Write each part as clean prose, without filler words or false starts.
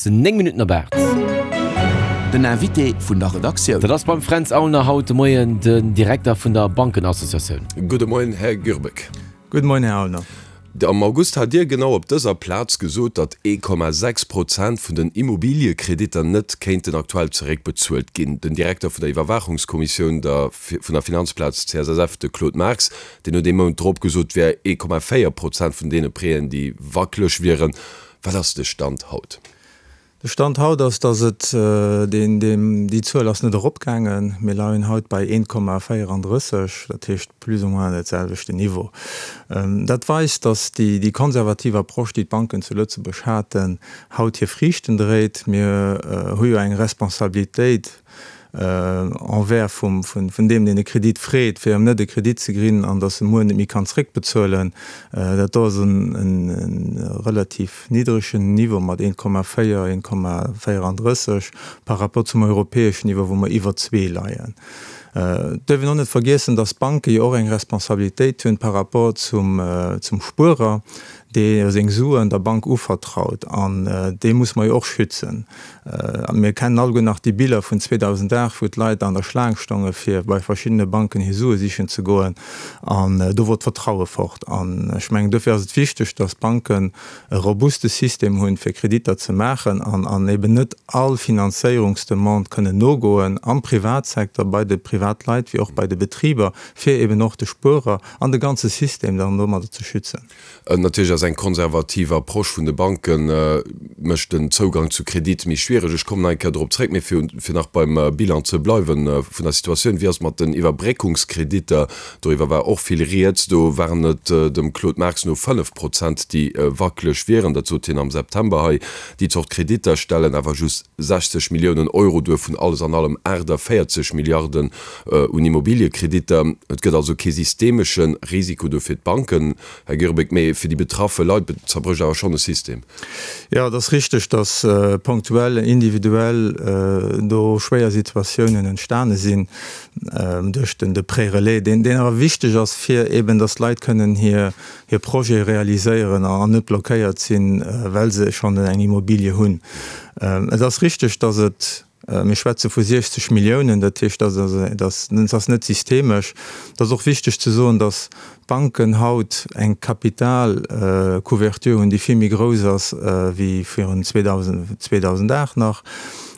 ass 9 Minutten op 8. Den Invité vun der Redaktioun. Dat ass beim Fränz Aulner haut de Moien den Direkter vun der Bankenassociatioun. Gudde Moien, Här Gürbeck. Gudde Moien, Här Aulner. Am August hat Dir genau op dëser Plaz gesot, datt 1,6 Prozent vun den Immobiliekreditter net kéinten aktuell zeréckbezuelt ginn. Den Direkter vun der Iwwerwaachungskommissioun der vun der Finanzplaz CSSF, de Claude Marx, deen huet ee Mount drop gesot, et wär 1,4 Prozent vun deene Prêten, déi wackeleg wieren. Wat ass de Stand haut? De Stand haut ass, dass et deen, deen, déi Zuel ass net eropgaangen. Mir leien haut bei 1,34, dat heescht plus ou moins dat selwechte Niveau. Dat weist, dass déi, déi konservativ Approche, déi d'Banken zu Lëtzebuerg haten, haut hir Friichten dréit. Mir hu jo eng Responsabilitéit envers vum, vun deem, deen e Kredit freet, fir em net e Kredit ze grinn an dass e muer net méi kann zréckbezuelen. Dat do ass en relativ niddregen Niveau mat 1,4, 1,34 par rapport zum europäeschen Niveau, wou mer iwwer zwee leien. Et duerf een och net vergiessen, dass d'Banke jo och eng Responsabilitéit hunn par rapport zum Spuerer, dee seng Suen der Bank uvertraut, an dee muss mer jo och schützen. Mir kennen alleguer nach déi Biller vun 2008, wou d'Leit an der Schlaang stonge fir bei verschiddene Banken hir Sue sichen ze goen, an do wor d'Vertraue fort. An ech mengen, dofir ass et wichteg, datt d'Banken e robuste System hunn, fir Kreditter ze maachen an an eben net all Finanzéierungsdemande kënnen nogoen am Privatsecteur, bei de Privatleit wéi och bei de Betriber, fir eben och de Spuerer an de ganze System dann domadder ze schützen. Natierlech ass eng konservativ Approche vun de Banke mécht den Zougang zu Kredite méi schwiereg. Ech kommen nach eng Kéier dorop zréck. Mee fir nach beim Bilan ze bleiwe vun der Situatioun, Wéi ass et mat den Iwwerbréckungskreditter? Doriwwer war och vill Rieds. Do waren et dem Claude Marx no 5 Prozent, déi wackeleg wieren. Dat sot hien am September hei. Déi Zort Kreditter stellen awer just 60 Milliounen Euro duer vun alles an allem 48 Milliarden un Immobiliekreditter. Et gëtt also kee systemesche Risiko do fir d'Banken, Här Girbeck, mee fir déi betraffe Leit zerbrécht awer schonn e System. Jo, et ass richteg, datt ponktuell, individuell do schwéier Situatiounen entstane sinn duerch de Prêt relais, deen awer wichteg ass, fir eben datt d'Leit kënnen hir Projete realiséieren an net blockéiert sinn, well se schonn eng Immobilie hunn. Et ass richteg, datt et Mir schwätze vu 60 Milliounen, dat heescht, dat ass net systemesch. Et ass och wichteg ze soen, datt d'Banken haut eng Kapitalcouverture hunn, déi vill méi grouss ass wéi virun 2008 nach.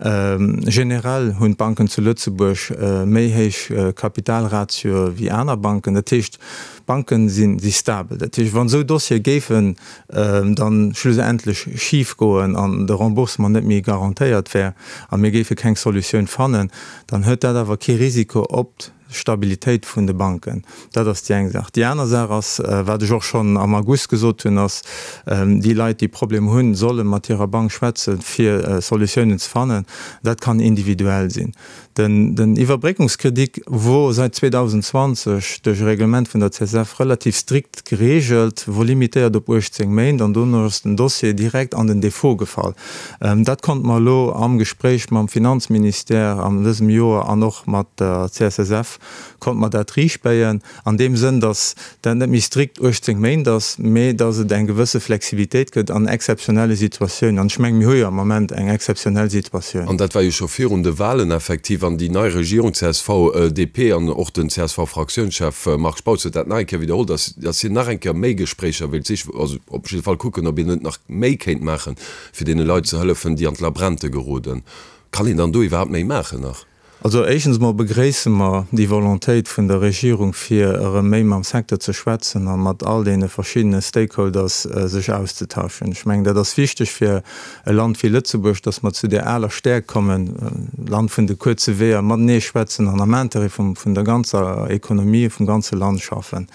Generell hunn d'Banken zu Lëtzebuerg méi héich Kapitalratioe wéi aner Banken. Dat heescht, D'Banken si stabel. Dat heescht, wann esou Dossiere géifen dann schlussendlech schif goen an de Remboursement net méi garantéiert wär a mir géife keng Solutioun fannen, dann huet dat awer kee Risiko op d'Stabilitéit vun de Banken. Dat ass déi eng Saach. Déi aner Saach ass, wat ech och schonn am August gesot hunn, ass, déi Leit, déi Problemer hunn, solle mat hirer Bank schwätzen, fir Solutiounen ze fannen. Dat kann individuell sinn. Den Iwwerbréckungskredit wor säit 2020 duerch e Reglement vun der CSF relativ strikt gereegelt, wor limitéiert op 18 Méint an dono ass den Dossier direkt an den Defaut gefall. Dat konnte mer elo am Gespréich mam Finanzministère an dësem Joer an och mat der CSSF konnte mer dat riichtbéien. An deem Sënn, datt dat net méi strikt 18 Méint ass, mee datt et eng gewësse Flexibilitéit gëtt an exzeptionelle Situatiounen. An ech mengen, mir hu jo am Ament eng exzeptionell Situatioun. An dat war jo scho virun de Wahlen effektiv. An déi nei Regierung, csv, DP an och den CSV-Fraktiounschef Marc Spautz huet dat nach eng Kéier widderholl, datt datt hien nach eng Kéier méi Gespréicher wéilt sichen, also op jidde Fall kucken, ob een net nach méi kéint maachen, fir deene Leit ze hëllefen, déi an d'Labrente geroden. Kann een dann do iwwerhaapt méi maachen nach? Also éischtens emol begréisse mer déi Volontéit vun der Regierung, fir erëm méi mam Secteur ze schwätzen a mat all deene verschiddene Stakeholders sech auszetauschen. Ech mengen, dat ass wichteg fir e Land wéi Lëtzebuerg, dass mer zu där aler Stäerkt kommen, Land vun de kuerze Weeër, matenee schwätzen an am Intérêt vun der ganzer Ekonomie, vum ganze Land schaffen.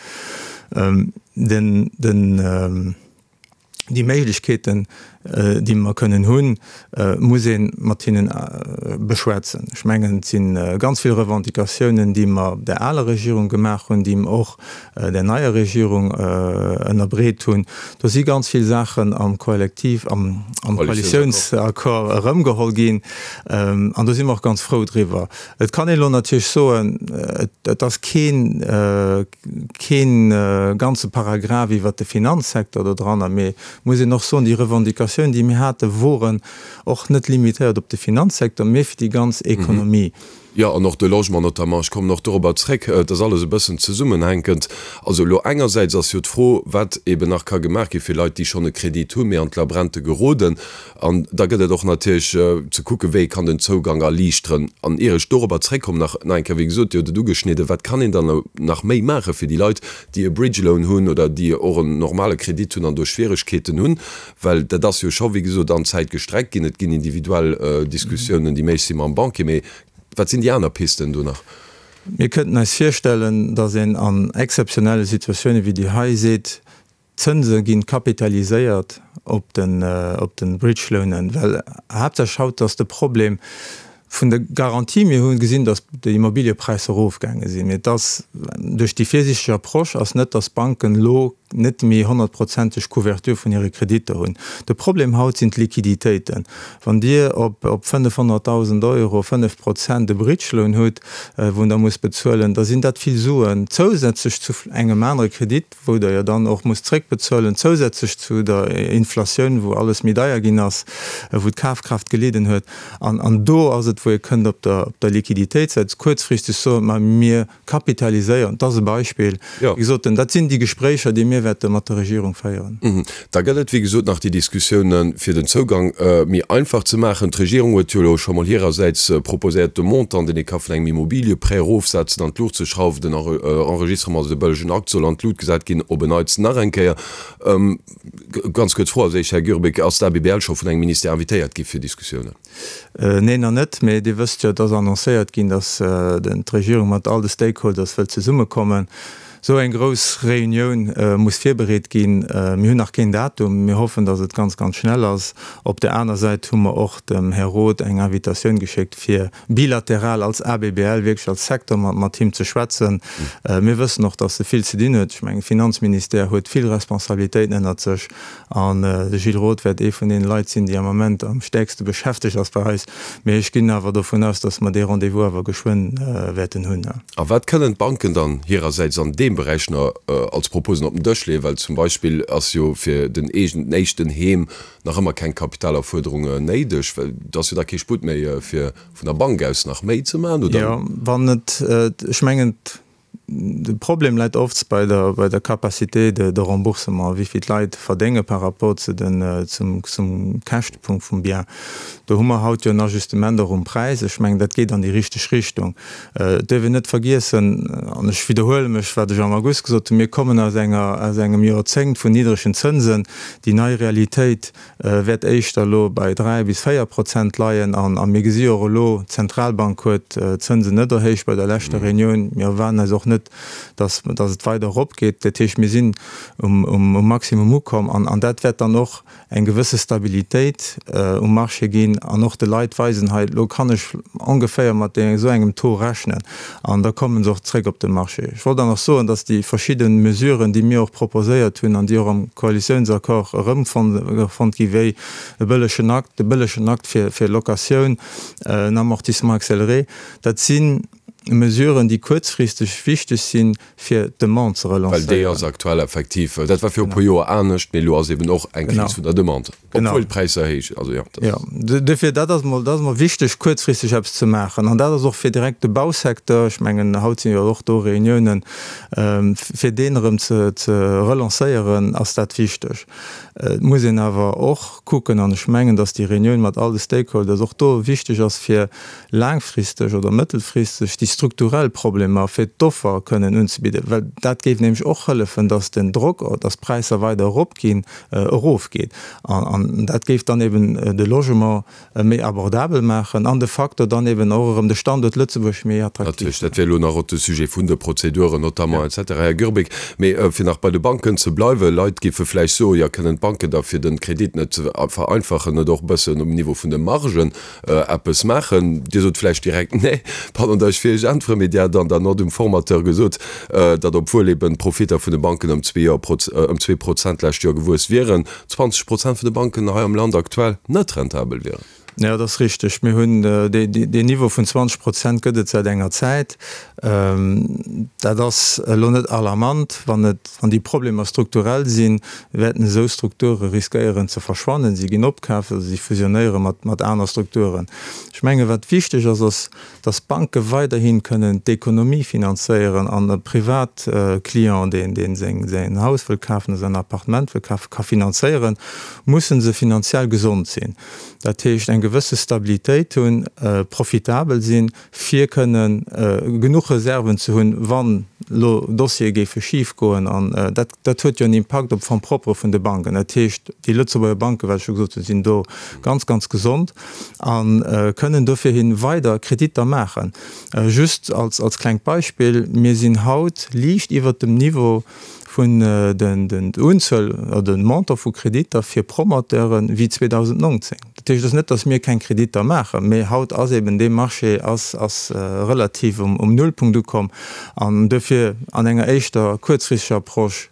Den, den. Déi Méiglechkeeten, déi mer kënnen hunn, muss ee mat hinnen beschwätzen. Ech mengen, et si ganz vill Revendicatiounen, déi mer der aler Regierung gemaach hunn, déi mer och der neier Regierung ënnerbreet hunn. Do si ganz vill Saachen am Kollektiv, am Koalitiounsaccord erëmgeholl ginn. An do si mer och ganz frou driwwer. Et kann een elo natierlech soen, et ass keen, kee ganze Paragraph iwwert de Finanzsecteur do dranner, mee muss een och soen, déi Revendicatiounen. Kommunikatioun, déi mir haten, woren och net limitéiert op de Finanzsecteur, mee fir déi ganz Ekonomie. Jo, an och de Logement notamment. Ech kommen och dorobber zréck. Et ass alles e bëssen zesummenhänkend. Also elo engersäits ass jo d'Fro, wat eben nach ka gemaach gi fir Leit, déi schonn e Kredit hunn, mee an d'Labrente geroden. An da gëtt et och natierlech ze kucken, wéi ee kann den Zougang erliichteren. An ier ech dorobber zréckkommen, nach nach eng Kéier, wéi gesot, Dir hutt et ugeschnidden, Wat kann een dann nach méi maache fir déi Leit, déi e Bridge Loan hunn oder déi och en normale Kredit hunn an do Schwieregkeeten hunn? Well dat ass jo scho, wéi gesot, an d'Zäit gestreckt ginn. Et ginn individuell Diskussiounen, déi méiglech si mam Banquier. Mee wat sinn déi aner Pisten do nach? Mir kënnten eis virstellen, datt een an exzeptionelle Situatioune wéi déi hei seet, d'Zënse gi kapitaliséiert op de Bridge Loanen, well haaptsächlech haut ass de Problem vun de Garantie. Mir hu gesinn, datt déi Immobiliëpräisser erofgaange sinn, mee et ass duerch déi virsiichteg Approche ass net, datt d'Banken elo net méi honnertprozenteg Couverture vun hire Kreditter hunn. De Problem haut sinn d'Liquiditéiten. Wann Dir op 500.000 Euro 5 Prozent e Bridge Loan hutt, wou Der musst bezuelen, da sinn dat vill Suen zousätzlech zu engem anere Kredit, wou Der jo dann och musst zréckbezuelen, zousätzlech zu der Inflatioun, wou alles méi deier ginn ass, wou d'Kafkraaft gelidden huet. An do ass et, wou ee kënnt op der Liquiditéitssäit kuerzfristeg soen, ma mir kapitaliséieren. Dat ass e Beispill. Wéi gesot, dat sinn déi Gespréicher, déi mir wäerte mat der Regierung féieren. Da gëtt et, wéi gesot, nach déi Diskussiounen, fir den Zougang méi einfach ze maachen. D'Regierung huet jo elo scho mol hirersäits proposéiert, de Montant, deen ee ka vun engem Immobilieprêt erofsetzen, an d'Luucht ze schrauwen. Den Enregistrement, also de bëllegen Akt, soll an d'Lut gesat ginn, op en Neits nach eng Kéier. Ganz kuerz Fro als éischt, Här Gürbeck, Ass d'ABBL scho vun engem Ministère invitéiert gi fir Diskussiounen? Neen, nach net. Mee Dir wësst jo, et ass annoncéiert ginn, datt d'Regierung mat all de Stakeholders wëllt zesummekommen. Esou eng grouss Reunioun muss virbereet ginn. Mir hunn nach keen Datum. Mir hoffen, datt et ganz, ganz schnell ass. Op där aner Säit hu mer och dem Här Roth eng Invitatioun geschéckt, fir bilateral als ABBL, wierklech als Secteur, mat him ze schwätzen. Mir wëssen och, datt e vill ze dinn huet. Ech mengen, de Finanzministère huet vill Responsabilitéiten ënnert sech. An de Gilles Roth wäert ee vun deene Leit sinn, déi am Ament am stäerkste beschäftegt ass bei eis. Mee ech ginn awer dovun aus, datt mer dee Rendez-vous awer geschwënn wäerten hunn. A wat kënnen d'Banken dann hirersäits an deem Beräich nach als Proposen op den Dësch leeën? Well zum Beispill ass jo fir den eegenen éischten Heem nach ëmmer keng Kapitalerfuerderung néideg, well do ass jo da kee Sputt méi fir vun der Bank aus nach méi ze maachen, oder? Jo, wann et, ech mengen, De Problem läit oft bei der, bei der Capacité de, de remboursement, wéi vill d'Leit verdénge par rapport zu den, zum, zum Käschtepunkt vum Bien. Do hu mer haut jo en Ajustement och um Präis. Ech mengen, dat geet an déi richteg Richtung. Et duerf een net vergiessen, an ech widderhuele mech, wat ech am August gesot hunn, mir kommen aus enger, aus engem Joerzéngt vun niddregen Zënsen. Déi nei Realitéit wäert éischter elo bei 3 bis 4 Prozent leien. A mir gesi jo och elo, d'Zentralbank huet d'Zënsen net erhéicht bei der leschter Reunioun. Mir erwaarden eis och net, datt et weider eropgeet. Dat heescht, mir sinn um Maximum ukomm an dat wäert dann och eng gewësse Stabilitéit um Marché ginn an och de Leit weisen, hei elo kann ech ongeféier mat esou engem Taux rechnen. An da komme se och zréck op de Marché. Ech wollt dann och soen, dass déi verschidde Mesuren, déi mir och proposéiert hunn an déi och am Koalitiounsaccord erëmfonnt gi wéi e bëllegen Akt, de bëllegen Akt fir Locatioun, en Amortissement accéléré, dat si Mesuren, déi kuerzfristeg wichteg sinn, fir d'Demande ze relancéieren. Well déi ass aktuell effektiv, dat war viru e puer Joer anescht, mee elo ass eben och eng Kris vun der Demande, obwuel d'Präisser héich, also jo, dat ass. Jo, duerfir, dat ass mol, dat ass mol wichteg, kuerzfristeg eppes ze maachen. An dat ass och fir direkt de Bausecteur, ech mengen, haut sinn jo och do Reuniounen, fir deen erëm ze ze relancéieren, ass dat wichteg. Et muss een awer och kucken, an ech mengen, datt déi Reunioun mat all de Stakeholders och do wichteg ass, fir laangfristeg oder mëttelfristeg déi strukturell Problemer fir d'Offer kënnen unzebidden, well dat géif nämlech och hëllefen, dass den Drock, dass d'Präisser weider eropginn, erofgeet. An dat géif dann eben de Logement méi abordabel maachen an de facto dann eben och erëm de Standuert Lëtzebuerg méi attraktiv. Natierlech, dat wär elo nach och de Sujet vun de Prozeduren notamment et cetera, Här Gürbeck. Mee fir nach bei de Banken ze bleiwen, Leit géife vläicht soen, jo, kënnen d'Banken da fir de Kredit net ze vereinfachen, net och e bëssen um Niveau vun de Margen eppes maachen. Dir sot vläicht direkt nee, pardon, datt ech fir Iech. äntweren, mee Dir hat an der Nott um Formateur gesot, datt obwuel eben d'Profitter vun de Banken ëm 2 Prozent d'lescht Joer gewuess wieren, 20 Prozent vun de Banken hei am Land aktuell net rentabel wieren. Jo, dat ass richteg. Mir hunn deen Niveau vun 20 Prozent gëtt et säit enger Zäit. Dat ass elo net alarmant. Wann et, wann déi Problemer strukturell sinn, wäerten esou Strukture riskéieren ze verschwannen. Si ginn opkaaft oder si fusionéiere mat, mat aner Strukturen. Ech menge wat wichteg ass, ass, datt d'Banke weiderhi kënnen d'Ekonomie finanzéieren an e Privatclient, deen, deen seng, säin Haus wëll kafen oder säin Appartement wëll kafen, ka finanzéieren, musse se finanziell gesond sinn. Dat heescht eng gewësse Stabilitéit hunn, profitabel sinn, fir kënnen genuch Reserven ze hunn, wann elo Dossiere géife schif goen. An dat, dat huet jo en Impakt op d'Fonds propres vun de Banken. Dat heescht, déi Lëtzebuerger Banken, wat ech scho gesot hunn, sinn do ganz, ganz gesond a kënnen dofir hi weider Kreditter maachen. Just als, als klengt Beispill, Mir sinn haut liicht iwwert dem Niveau, vun den Unzuel oder den Montant vu Kreditter fir Promoteuren wéi 2019. Dat heescht, et ass net, datt mir keng Kreditter maachen, mee haut ass eben dee Marché ass ass relativ um Nullpunkt ukomm an duerfir an enger éischter kuerzfristeger Approche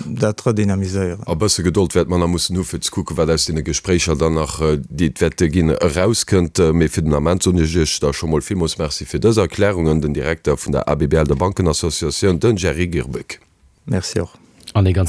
dat redynamiséieren. A bësse Gedold wäerte mer nach mussen hu fir ze kucken, wat aus deene Gespréicher dann nach, déi et wäerte ginn, erauskënnt. Mee fir den Ament soen ech Iech da scho mol villmools Merci fir dës Erklärungen. Den Direkter vun der ABBL, der Bankenassociatioun, den Jerry Girbeck. Merci och. An ee ganz.